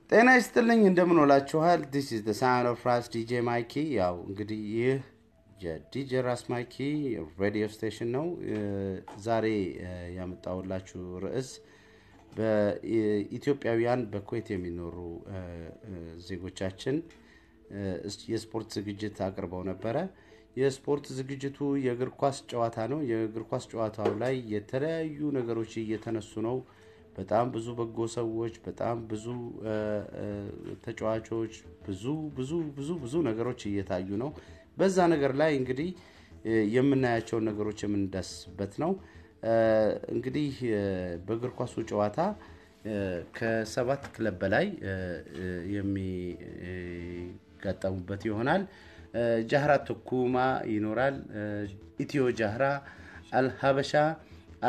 ጤና ይስጥልኝ እንደምን ዋላችኋል this is the sound of Ras DJ Mikey ያው እንግዲህ ይህ የዲጄ ራስ ማይኪ ሬዲዮ ስቴሽን ነው ዛሬ ያመጣውላችሁ ርዕስ በኢትዮጵያውያን በኩዌት የሚኖሩ ዜጎቻችን የስፖርት ዝግጅት አቅርበው ነበር የስፖርት ዝግጅቱ የእግር ኳስ ጨዋታ ነው የእግር ኳስ ጨዋታው ላይ የተለያዩ ነገሮች እየተነሱ ነው በጣም ብዙ በጎ ሰዎች በጣም ብዙ ተጫዋቾች ብዙ ነገሮች እየታዩ ነው በዛ ነገር ላይ እንግዲህ የምናያቸው ነገሮች የምንዳስበት ነው እንግዲህ በእግር ኳሱ ጨዋታ ከ7 ክለብ በላይ የሚጋጠሙበት ይሆናል ጃህራ ተኩማ ይኖራል ኢትዮ ጃህራ አልሀበሻ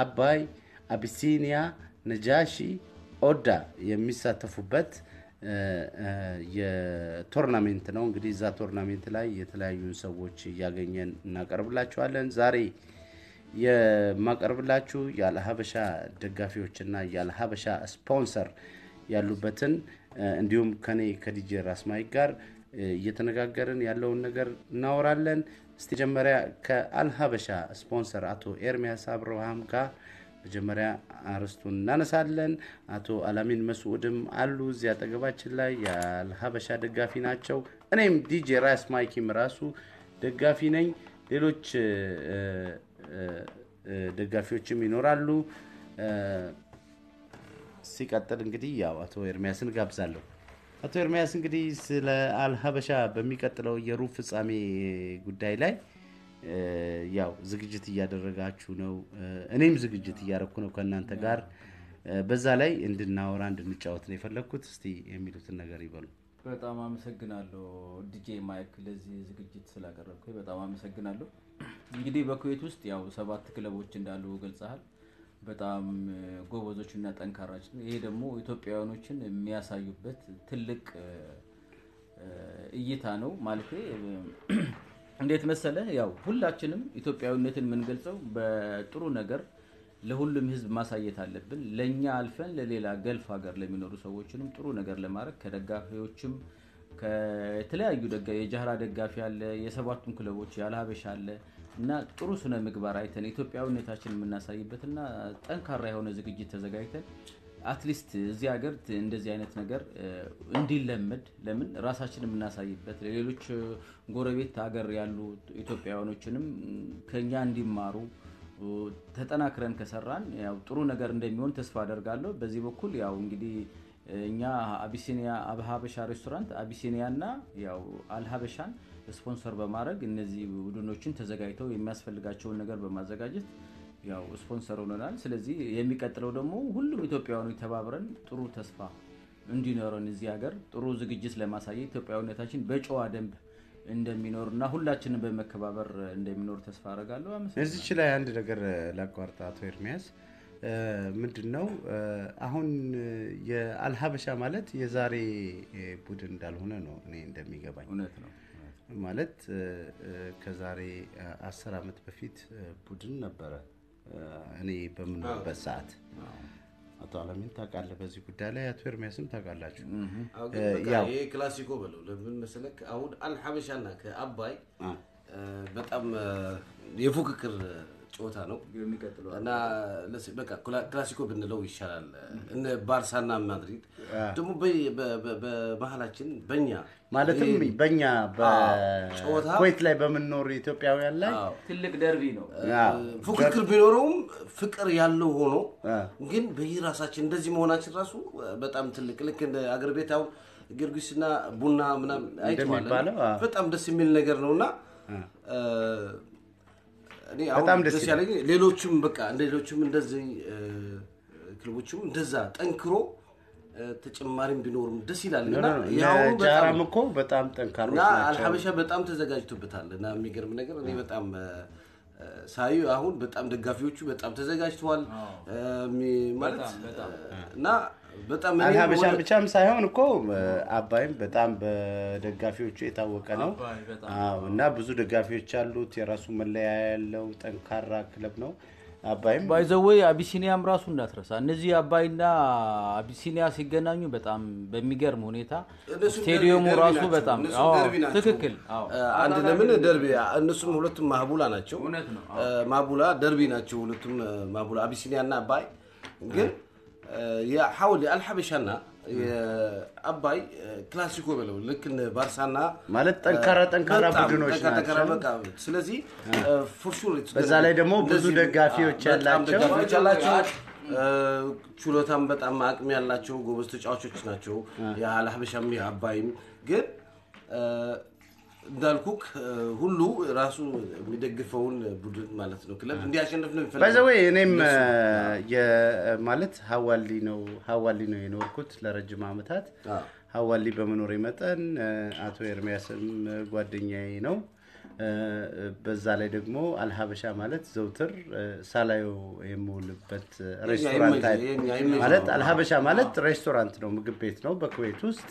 አባይ አቢሲኒያ ነጃሺ ኦዳ የሚሳተፉበት የቶርናመንት ነው እንግዲህ ዛ ቶርናመንት ላይ የተለያዩ ሰዎች ያገኘን እናቀርብላችኋለን ዛሬ የማቀርብላችሁ ያለሀበሻ ደጋፊዎችና ያለሀበሻ ስፖንሰር ያሉበትን እንዲሁም ከኔ ከዲጄ ራስ ማይክ ጋር እየተነጋገርን ያለውን ነገር እናወራለን እስቲ ጀመሪያ ከአልሀበሻ ስፖንሰር አቶ ኤርሚያስ አብርሃም ጋር መጀመሪያ አርስቱን እናነሳለን አቶ አላሚን መስዑድም አሉ እዚያ ተገባችን ላይ ያልሀበሻ ደጋፊ ናቸው እኔም ዲጄ ራስ ማይኪም ራሱ ደጋፊ ነኝ ሌሎች ደጋፊዎችም ይኖራሉ ሲቀጥል እንግዲህ ያው አቶ ኤርሚያስን ጋብዛለሁ አቶ ኤርሚያስ እንግዲህ ስለ አልሀበሻ በሚቀጥለው የሩብ ፍጻሜ ጉዳይ ላይ ያው ዝግጅት እያደረጋችሁ ነው እኔም ዝግጅት እያደረኩ ነው ከናንተ ጋር በዛ ላይ እንድናወራ እንድንጫወት ነው የፈለኩት እስቲ የሚሉትን ነገር ይበሉ በጣም አመሰግናለሁ ዲጄ ማይክ ለዚህ ዝግጅት ስላቀረብከኝ በጣም አመሰግናለሁ እንግዲህ በኩዌት ውስጥ ያው 7 ክለቦች እንዳሉ ገልጸሃል በጣም ጎበዞችና ጠንካራች ነው ይሄ ደግሞ ኢትዮጵያውያኖችን የሚያሳዩበት ትልቅ እይታ ነው ማለት እንዴት መሰለ ያው ሁላችንም ኢትዮጵያዊነትን ምን ገልጸው በጥሩ ነገር ለሁሉም ህዝብ ማሳየት አለብን ለኛ አልፈን ለሌላ ገልፍ ሀገር ለሚኖሩ ሰዎችንም ጥሩ ነገር ለማድረግ ከደጋፊዎችም ከተለያዩ የጃህራ ደጋፊ አለ የሰባቱም ክለቦች ያልሀበሻ አለ እና ጥሩ ስነ ምግባር አይተን ኢትዮጵያዊነታችንን እናሳይበትና ጠንካራ የሆነ ዝግጅት ተዘጋጅተን አትሊስት እዚህ ሀገር እንደዚህ አይነት ነገር እንዲለመድ ለምን ራሳችንን እናሳይበት ለሌሎች ጎረቤት ሀገር ያሉ ኢትዮጵያውያኖችንም ከኛ እንዲማሩ ተጠናክረን ከሰራን ያው ጥሩ ነገር እንደሚሆን ተስፋ አደርጋለሁ በዚህ በኩል ያው እንግዲህ እኛ አቢሲኒያ አብሀበሻ ሬስቶራንት አቢሲኒያና ያው አልሀበሻን ስፖንሰር በማድረግ እነዚህ ቡድኖችን ተዘጋጅተው የሚያስፈልጋቸውን ነገር በማዘጋጀት ያው ስፖንሰር ሆነናል ስለዚህ የሚቀጥለው ደግሞ ሁሉም ኢትዮጵያውያኖች ተባብረን ጥሩ ተስፋ እንዲኖረን እዚህ ሀገር ጥሩ ዝግጅት ለማሳየት ኢትዮጵያዊነታችን በጨዋ ደንብ እንደሚኖርና ሁላችንም በመከባበር እንደሚኖር ተስፋ አደርጋለሁ እዚች ላይ አንድ ነገር ላቋርጣ አቶ ኤርሚያስ ምንድነው አሁን የአልሀበሻ ማለት የዛሬ ቡድን እንዳልሆነ ነው እኔ እንደሚገባኝ እውነት ነው ማለት ከዛሬ 10 አመት በፊት ቡድን ነበረ እኔ በምንበት ሰዓት አቶ አላሚን ታውቃለህ በዚህ ጉዳይ ላይ አቶ ኤርሚያስም ታውቃላችሁ ያው ይሄ ክላሲኮ በለው ለምን መሰለክ አሁን አልሀበሻና ከአባይ በጣም የፉክክር ጨዋታ ነው የሚቀጥለው እና በቃ ክላሲኮ ብንለው ይሻላል እነ ባርሳና ማድሪድ ደግሞ በመሃላችን በእኛ ማለትም በእኛ በኩዌት ላይ በመኖር ኢትዮጵያውያን ላይ ትልቅ ደርቢ ነው ፉክክር ቢኖርም ፍቅር ያለው ሆኖ ግን በየራሳችን እንደዚህ መሆናችን ራሱ በጣም ትልቅ ልክ እንደ አገር ቤታው ጊዮርጊስና ቡና ምናምን አይተዋል በጣም ደስ የሚል ነገር ነውና እኔ አሁን ደስ ያለኝ ሌሎችም በቃ እንደሌሎችም እንደዚህ ክለቦችም እንደዛ ጠንክሮ ተጨማሪም ቢኖርም ደስ ይላልና ያው ጃራም እኮ በጣም ጠንካሮች ናቸው አልሀበሻ በጣም ተዘጋጅቶበታልና የሚገርም ነገር እኔ በጣም ሳዩ አሁን በጣም ደጋፊዎቹ በጣም ተዘጋጅተዋል ማለት እና በጣም አልሀበሻ ብቻም ሳይሆን እኮ አባይም በጣም በደጋፊዎቹ የታወቀ ነው አዎ እና ብዙ ደጋፊዎች አሉት የራሱ መለያ ያለው ጠንካራ ክለብ ነው አባይም ባይዘወይ አቢሲኒያም ራሱ እንዳትረሳ እነዚህ አባይና አቢሲኒያ ሲገናኙ በጣም በሚገርም ሁኔታ ስቴዲየሙ ራሱ በጣም ትክክል አንድ ለምን ደርቢ እነሱም ሁለቱም ማህቡላ ናቸው ማህቡላ ደርቢ ናቸው ሁለቱም ማህቡላ አቢሲኒያና አባይ ግን የሐውል አልሐበሻና የአባይ ክላሲኮ በለው ልክ ባርሳና ማለት ጠንካራ ቡድኖች ናቸው ስለዚህ ፎርሹር በዛ ላይ ደግሞ ብዙ ደጋፊዎች ያላቸው ቹሎታም በጣም አቅም ያላቸው ጎበዝ ተጫዋቾች ናቸው የአልሐበሻም የአባይም ግን እንዳልኩክ ሁሉ ራሱ የሚደግፈውን ቡድን ማለት ነው ክለብ እንዲያሸንፍ ነው የሚፈልገው ባይዘዌ እኔም ማለት ሐዋሊ ነው የኖርኩት ለረጅም አመታት ሐዋሊ በመኖር መጠን አቶ ኤርሚያስም ጓደኛዬ ነው በዛ ላይ ደግሞ አልሐበሻ ማለት ዘውትር ሳላዩ የምውልበት ሬስቶራንት ማለት አልሐበሻ ማለት ሬስቶራንት ነው ምግብ ቤት ነው በኩዌት ውስጥ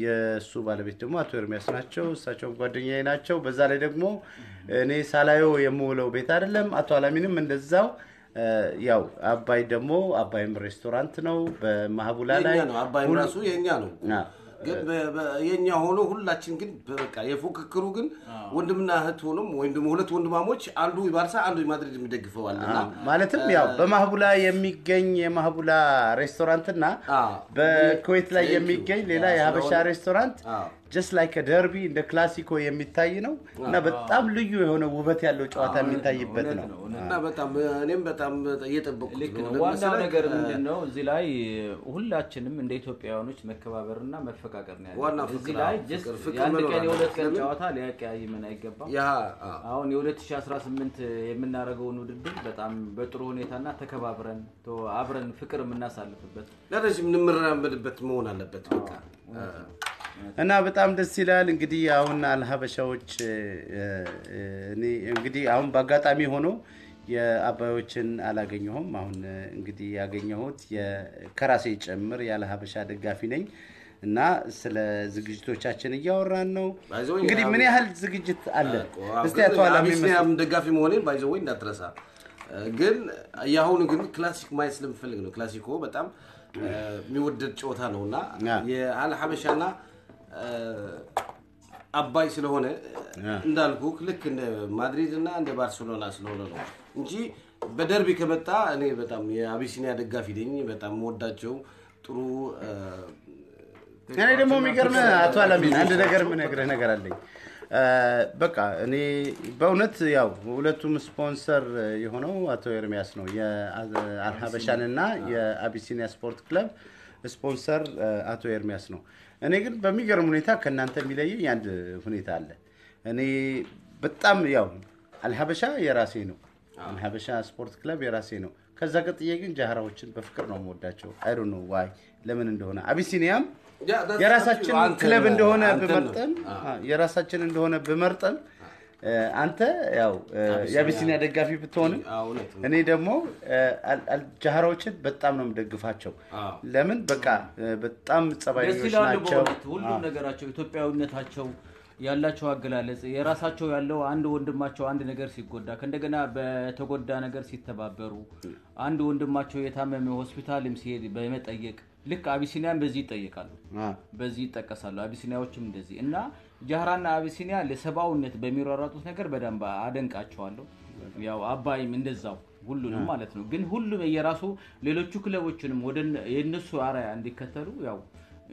የሱ ባለቤት ደግሞ አቶ ኤርሚያስ ናቸው እሳቸው ጓደኛዬ ናቸው በዛ ላይ ደግሞ እኔ ሳላዩ የምውለው ቤት አይደለም አቶ አላሚንም እንደዛው ያው አባይ ደግሞ አባይም ሬስቶራንት ነው በማህቡላ ላይ ነው አባይ ራሱ የኛ ነው ግን የኛ ሆኖ ሁላችን ግን በቃ የፉክክሩ ግን ወንድምና እህት ሆኖም ወንድም ሁለት ወንድማሞች አንዱ ባርሳ አንዱ ማድሪድ የሚደግፈው አለና ማለትም ያው በማህቡላ የሚገኝ የማህቡላ ሬስቶራንትና በኩዌት ላይ የሚገኝ ሌላ የሀበሻ ሬስቶራንት just like a derby እንደ ክላሲኮ የሚታይ ነው እና በጣም ልዩ የሆነ ውበት ያለው ጨዋታ የሚታይበት ነው እና በጣም እኔም በጣም እየጠበቅኩት ነው ዋናው ነገር ምንድነው እዚህ ላይ ሁላችንም እንደ ኢትዮጵያውያኖች መከባበርና መፈቃቀር ነው ያለው እዚህ ላይ አንድ ቀን የሁለት ቀን ጨዋታ ሊያቀያይመን አይገባም አሁን የ2018 የምናረገውን ውድድር በጣም በጥሩ ሁኔታና ተከባብረን አብረን ፍቅር የምናሳልፍበት ለረጅም እንምራመድበት መሆን አለበት በቃ እና በጣም ደስ ይላል እንግዲህ አሁን አልሐበሻዎች እኔ እንግዲህ አሁን በአጋጣሚ ሆኖ የአባዮችን አላገኘሁም አሁን እንግዲህ ያገኘሁት የከራሴ ጨምር ያልሐበሻ ደጋፊ ነኝ እና ስለ ዝግጅቶቻችን እያወራን ነው እንግዲህ ምን ያህል ዝግጅት አለ እስቲ አቶ አላሚም ደጋፊ መሆኔን ባይዘው እንዳትረሳ ግን ያሁን ግን ክላሲክ ማይስ ለምፈልግ ነው ክላሲኮ በጣም የሚወደድ ጨዋታ ነውና የአልሐበሻና አባይ ስለሆነ እንዳልኩ ልክ እንደ ማድሪድ እና እንደ ባርሴሎና ስለሆነ ነው እንጂ በደርቢ ከመጣ እኔ በጣም የአቢሲኒያ ደጋፊ ነኝ በጣም ወዳቸው ጥሩ እኔ ደግሞ የሚገርም አቶ አላሚን አንድ ነገር ምን ነገር አለኝ በቃ እኔ በእውነት ያው ሁለቱም ስፖንሰር የሆነው አቶ ኤርሚያስ ነው የአልሐበሻንና የአቢሲኒያ ስፖርት ክለብ ስፖንሰር አቶ ኤርሚያስ ነው እኔ ግን በሚገርም ሁኔታ ከናንተ የሚለየኝ አንድ ሁኔታ አለ እኔ በጣም ያው አልሐበሻ የራሴ ነው አልሐበሻ ስፖርት ክለብ የራሴ ነው ከዛ ቀጥዬ ግን ጃሃራዎችን በፍቅር ነው የምወዳቸው I don't know why ለምን እንደሆነ አቢሲኒያም የራሳችን ክለብ እንደሆነ በመርጠም አንተ ያው የአቢሲኒያ ደጋፊ ብትሆን እኔ ደግሞ ጃሃራዎችን በጣም ነው የምደግፋቸው ለምን በቃ በጣም ጸባይኞች ናቸው ሁሉ ነገራቸው ኢትዮጵያዊነታቸው ያላቸው አገላለጽ የራሳቸው ያለው አንድ ወንድማቸው አንድ ነገር ሲጎዳ ከእንደገና በተጎዳ ነገር ሲተባበሩ አንድ ወንድማቸው የታመመ ሆስፒታልም ሲሄድ በመጠየቅ ልክ አቢሲኒያን በዚህ ይጠየቃሉ በዚህ ይጠቀሳሉ አቢሲኒያዎችም እንደዚህ እና ጃሃራና አቢሲኒያ ለሰባውነት በሚሯሯጡት ነገር በደንብ አደንቃቸዋለሁ ያው አባይም እንደዛው ሁሉንም ማለት ነው ግን ሁሉም የራሱ ሌሎቹ ክለቦችንም ወደ የነሱ አራያ እንዲከተሉ ያው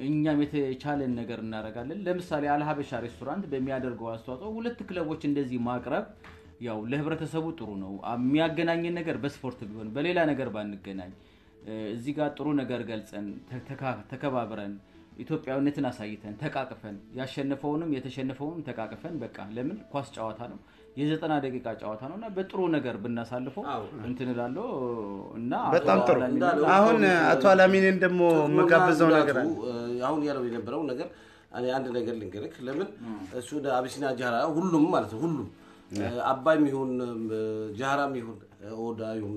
እኛም የተቻለን ነገር እናረጋለን ለምሳሌ አልሐበሻ ሬስቶራንት በሚያደርገው አስተዋጽኦ ሁለት ክለቦች እንደዚህ ማቅረብ ያው ለህብረተሰቡ ጥሩ ነው የሚያገናኘን ነገር በስፖርት ቢሆን በሌላ ነገር ባንገናኝ እዚህ ጋር ጥሩ ነገር ገልጸን ተከባብረን ኢትዮጵያዊነትን አሳይተን ተቃቅፈን ያሸነፈውንም የተሸነፈውንም ተቃቅፈን በቃ ለምን ኳስ ጨዋታ ነው የ90 ደቂቃ ጨዋታ ነውና በጥሩ ነገር ብናሳልፈው እንትንላለው እና በጣም ጥሩ አሁን አቶ አላሚንን ደሞ መጋበዘው ነገር አሁን ያለው የነበረው ነገር እኔ አንድ ነገር ልንገርክ ለምን እሱ አቢሲኒያ ጃሃራ ሁሉም ማለት ነው ሁሉም አባይም ይሁን ጃሃራም ይሁን ኦዳዩም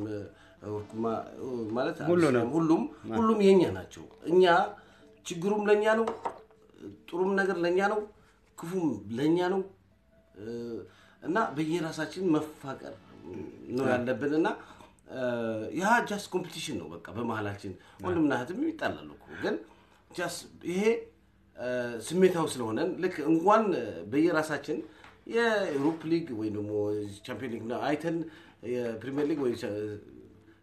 ወርኩማ ማለት ሁሉም የኛ ናቸው እኛ ችግሩም ለኛ ነው ጥሩም ነገር ለኛ ነው ክፉም ለኛ ነው እና በየራሳችን መፋቀር ነው ያለብንና ያ ጃስት ኮምፒቲሽን ነው በቃ በመሃላችን ወንድምና እህትም ይጣላሉ እኮ ግን ጃስት ይሄ ስሜታው ስለሆነ ልክ እንኳን በየራሳችን የዩሮፕ ሊግ ወይ ደግሞ ቻምፒየንስ ሊግ አይተን የፕሪሚየር ሊግ ወይ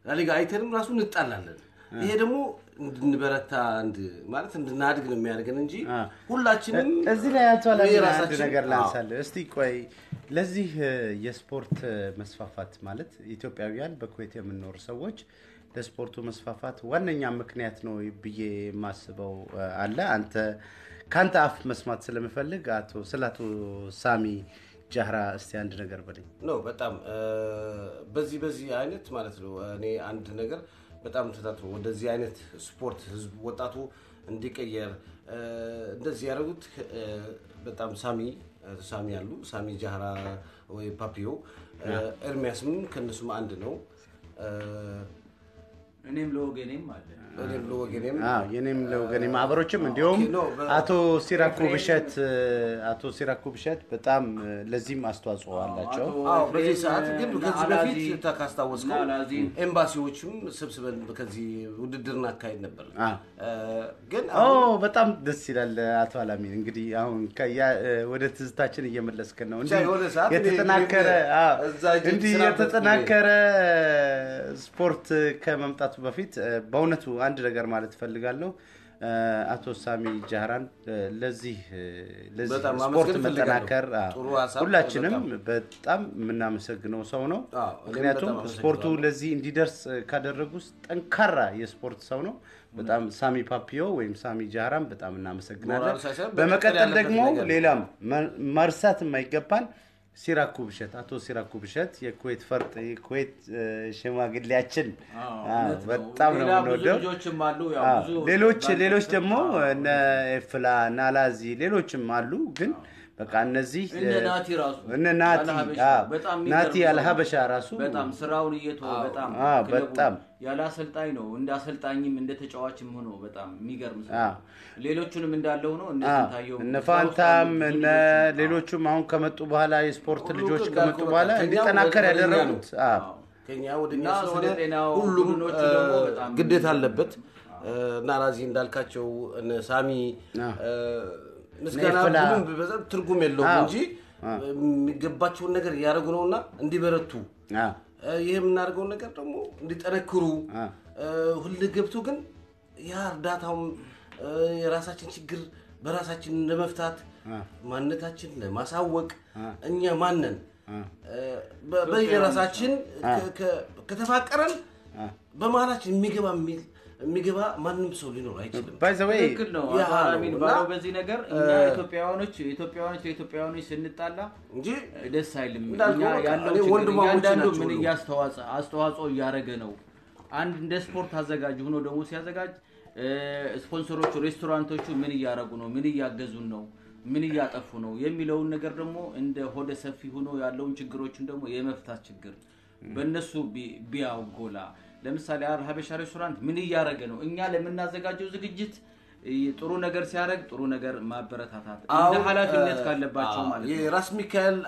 ላሊጋ አይተንም ራሱ እንጣላለን ይሄ ደግሞ እንድንበረታ ማለት እንድናድግ ነው የሚያደርገን እንጂ ሁላችንም እዚህ ላይ ያቷላል አንድ ነገር ላንሳለ እስቲ ቆይ ለዚህ የስፖርት መስፋፋት ማለት ኢትዮጵያውያን በኩዌት የምንኖር ሰዎች ለስፖርቱ መስፋፋት ዋነኛ ምክንያት ነው ብዬ ማስበው አለ አንተ ካንተ አፍ መስማት ስለምፈልግ አቶ ሳሚ ጃህራ እስቲ አንድ ነገር በለኝ ነው በጣም በዚህ አይነት ማለት ነው እኔ አንድ ነገር በጣም ተታጥሮ ወደዚህ አይነት ስፖርት ህዝብ ወጣቱ እንዲቀየር እንደዚህ ያደረጉት በጣም ሳሚ ያሉ ሳሚ ጃህራ ወይ ፓፒዮ ኤርሚያስም ከነሱም አንድ ነው እኔም ለወገኔም አለ የኔም ለወገኔም አብሮችም እንዲሁም አቶ ሲራኩ ብሸት በጣም ለዚህም አስተዋጽኦ አላቸው በዚህ ሰዓት ግን ከዚህ በፊት ተካስታወስከው ኤምባሲዎችም ሰብስበን ከዚህ ውድድርና አካሄድ ነበር ግን በጣም ደስ ይላል አቶ አላሚን እንግዲህ አሁን ወደ ትዝታችን እየመለስከን ነው እንዴ የተጠናከረ ስፖርት ከመምጣቱ በፊት በእውነቱ አንድ ነገር ማለት ፈልጋለሁ አቶ ሳሚ ጃህራን ለዚህ ስፖርት መጠናከር ሁላችንም በጣም ምናመሰግነው ሰው ነው ምክንያቱም ስፖርቱ ለዚህ እንዲደርስ ካደረጉት ጠንካራ የስፖርት ሰው ነው በጣም ሳሚ ፓፒዮ ወይም ሳሚ ጃህራን በጣም እናመሰግናለን በመቀጠል ደግሞ ሌላም ማርሳት የማይገባን አቶ ሲራኩ ብሸት የኩዌት ፈርጥ የኩዌት ሽማግሌያችን በጣም ነው የምንወደው ሌሎች ደግሞ እነ ኤፍላ ናላዚ ሌሎችም አሉ ግን በቃ እነዚህ እነ ናቲ አልሀበሻ ራሱ በጣም ስራውን እየተወ በጣም ያለ አሰልጣኝ ነው እንደ አሰልጣኝም እንደ ተጫዋችም ሆኖ በጣም የሚገርም ሰው ሌሎቹንም እንዳለው ነው እነ ፋንታም እነ ሌሎቹም አሁን ከመጡ በኋላ የስፖርት ልጆች ከመጡ በኋላ እንዲጠናከር ያደረጉት ከኛ ወደኛ ስለሆነ ሁሉም ግዴታ አለበት ናራዚ እንዳልካቸው እነ ሳሚ ምስጋና ሁሉም በዛም ትርጉም የለውም እንጂ የሚገባቸውን ነገር ያደርጉ ነውና እንዲበረቱ ይሄም እናርገው ነገር ደግሞ እንዲጠነክሩ ሁሉ ገብቶ ግን ያ እርዳታው የራሳችን ችግር በራሳችን ለመፍታት ማንነታችን ለማሳወቅ እኛ ማንነን በየራሳችን ከተፋቀረን በማላችን የሚገባ ማንንም ሰው ሊኖር አይችልም ባይዘዌይ ነው አላሚን ባለው በዚህ ነገር እኛ ኢትዮጵያውያኖች ስንጣላ እንጂ ደስ አይልም እኛ ያለው አንዳንዱ ምን አስተዋጽኦ ያረገ ነው አንድ እንደ ስፖርት አዘጋጅ ሆኖ ደግሞ ሲያዘጋጅ ስፖንሰሮቹ ሬስቶራንቶቹ ምን ያያረጉ ነው ምን ያያገዙን ነው ምን ያያጠፉ ነው የሚለውን ነገር ደግሞ እንደ ሆደ ሰፊ ሆኖ ያለውን ችግሮችን ደግሞ የመፍታት ችግር በእነሱ ቢያውጎላ ለምሳሌ ሀበሻ ሬስቶራንት ምን ያያረገ ነው እኛ ለምናዘጋጀው ዝግጅት ጥሩ ነገር ሲያረግ ጥሩ ነገር ማበረታታት እንደ ኃላፊነት ካለባቸው ማለት ነው የራስ ሚካኤል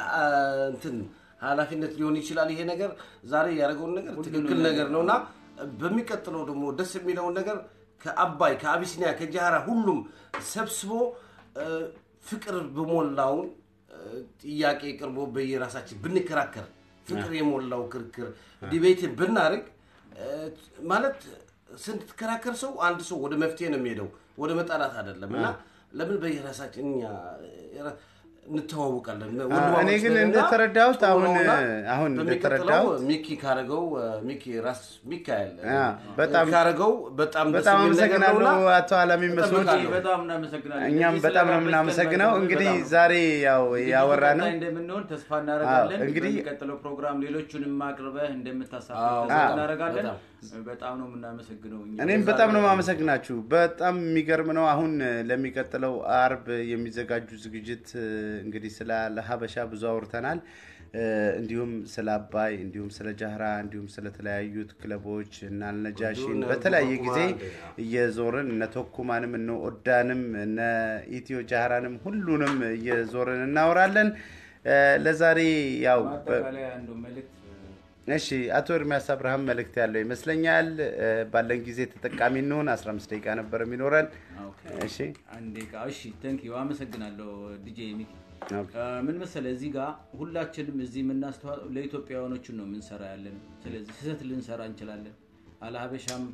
እንትን ኃላፊነት ሊሆን ይችላል ይሄ ነገር ዛሬ ያረጋው ነገር ትክክል ነገር ነውና በሚቀጥለው ደግሞ ደስ የሚለው ነገር ከአባይ ከአቢሲኒያ ከጃራ ሁሉም ሰብስቦ ፍቅር በሞላው ጥያቄ ቅርቦ በየራሳችን ብንከራከር ፍቅር የሞላው ክርክር ዲቤት ብናርግ ማለት ስንትከራከር ሰው አንድ ሰው ወደ መፍትሄ ነው የሚሄደው ወደ መጣላት አይደለምና ለምን በየራሳችን እንተዋወቃለን እኔ ግን እንደተረዳሁት አሁን እንደተረዳው ሚኪ ካረገው ሚኪ ራስ ሚካኤል በጣም ካረገው በጣም አመሰግናለሁ አቶ አላሚ መስሎት በጣም እናመሰግናለን እኛም በጣም ነው የምናመሰግነው እንግዲህ ዛሬ ያው ያወራነው እንደምንሆን ተስፋ እናደርጋለን እንግዲህ በሚቀጥለው ፕሮግራም ሌሎቹንም ማቅረበህ እንደምታሳትፍ ተስፋ እናደርጋለን በጣም ነው የምናመሰግነው እኔም በጣም ነው ማመሰግናችሁ በጣም የሚገርም ነው አሁን ለሚቀጥለው አርብ የሚዘጋጁ ዝግጅት እንግዲህ ስለ ሀበሻ ብዙ አውርተናል እንዲሁም ስለ አባይ እንዲሁም ስለ ጃህራ እንዲሁም ስለ ተለያዩት ክለቦች እና ነጃሺን በተለያየ ጊዜ እየዞርን እነ ቶኩማንም እነ ኦዳንም እነ ኢትዮ ጃህራንም ሁሉንም እየዞርን እናወራለን ለዛሬ ያው በተለይ አንዱ መልእክት እሺ አቶ ኤርሚያስ አብርሃም መልእክት ያለው ይመስለኛል ባለን ጊዜ ተጠቃሚ እንሆን 15 ደቂቃ ነበር የሚኖረን እሺ አንዴ እሺ ቴንክ ዩ አመሰግናለሁ ዲጄ ሚኪ ምን መሰለ እዚህ ጋር ሁላችንም እዚህ ምናስተዋው ለኢትዮጵያውያኖች ነው ምንሰራ ያለን ስለዚህ ስህተት ልንሰራ እንችላለን አለሀበሻም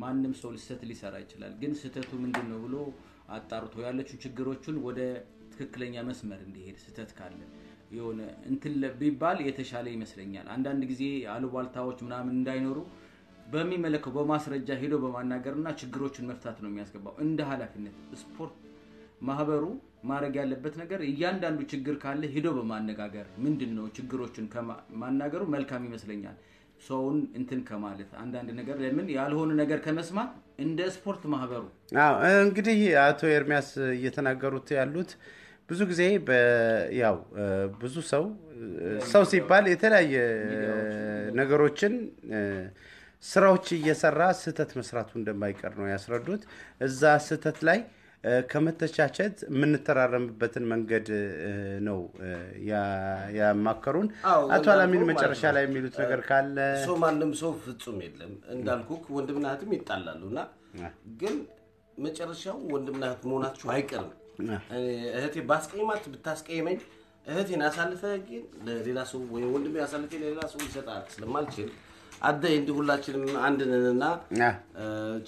ማንንም ሰው ስህተት ሊሰራ ይችላል ግን ስህተቱ ምንድነው ብሎ አጣርቶ ያለችው ችግሮችን ወደ ትክክለኛ መስመር እንዲሄድ ስህተት ካለ የሆነ እንትን ቢባል የተሻለ ይመስለኛል አንዳንድ ጊዜ አሉባልታዎች ምናምን እንዳይኖሩ በሚመለከው በማስረጃ ሄዶ በማናገርና ችግሮችን መፍታት ነው የሚያስገባው እንደ ኃላፊነት ስፖርት ማህበሩ ማረግ ያለበት ነገር እያንዳንዱ ችግር ካለ ሄዶ በማነጋገር ምንድነው ችግሮችን ከማናገሩ መልካም ይመስለኛል ሰውን እንትን ከማለት አንዳንድ ነገር ለምን ያልሆነ ነገር ከመስማት እንደ ስፖርት ማህበሩ እንግዲህ አቶ ኤርሚያስ እየተናገሩት ያሉት ብዙ ጊዜ ያው ብዙ ሰው ሲባል የተለያየ ነገሮችን ስራዎች እየሰራ ስህተት መስራቱ እንደማይቀር ነው ያስረዱት እዛ ስህተት ላይ ከመተቻቸት ምንተራረምበትን መንገድ ነው ያማከሩን አቶ አላሚን መጨረሻ ላይ የሚሉት ነገር ካለ ሰው ማንም ሰው ፍጹም የለም እንዳልኩክ ወንድምና እህትም ይጣላሉና ግን መጨረሻው ወንድምና እህት መሆናችሁ አይቀርም እህቴ ባስቀይማት ብታስቀይመኝ እህቴን አሳልፈ ግን ለሌላ ሰው ወይ ወንድሜ አሳልፈ ለሌላ ሰው ይሰጣል ስለማልችል አዳይ እንዲ ሁላችንም አንድ ነንና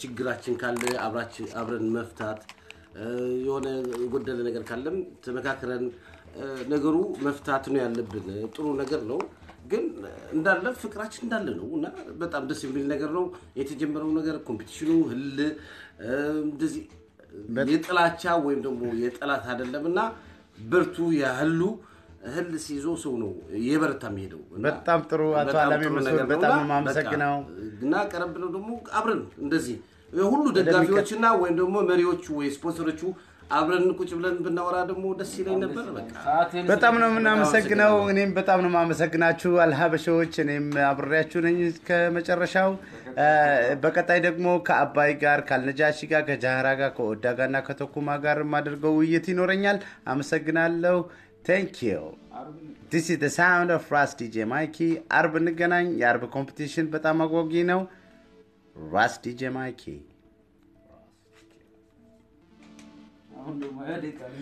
ችግራችን ካለ አብረን መፍታት የሆነ ጎደለ ነገር ካለም ተመካክረን ነገሩ መፍታት ነው ያለብን ጥሩ ነገር ነው ግን እንዳለ ፍቅራችን እንዳለ ነውና በጣም ደስ የሚል ነገር ነው የተጀመረው ነገር ኮምፒቲሽኑ ህል እንደዚህ የጥላቻ ወይም ደግሞ የጥላት አይደለምና ብርቱ ያህሉ ህል ሲዞ ሰው ነው የበረታ የሚሄደው በጣም ጥሩ አቶ አላሚ መስል በጣም ማመሰግናው እና ቀረብ ብለው ደግሞ አብረን እንደዚህ ሁሉ ደጋፊዎችና ወይም ደግሞ መሪዎቹ ወይ ስፖንሰሮቹ አብረን ቁጭ ብለን ብናወራ ደግሞ ደስ ይለኝ ነበር በቃ በጣም ነው እናመሰግናው እኔም በጣም ነው ማመሰግናችሁ አልሀበሾች እኔም አብሬያችሁ ነኝ ከመጨረሻው በቀጣይ ደግሞ ከአባይ ጋር ካልነጃሺ ጋር ከጃሃራ ጋር ከኦዳ ጋርና ከተኩማ ጋር ማድርገው ውይይት ይኖረኛል አመሰግናለሁ thank you this is the sound of Ras DJ Mikey አርብ እንገናኝ የአርብ ኮምፒቲሽን በጣም አጓጊ ነው Ras DJ Mikey አሁን ደግሞ ያደቃል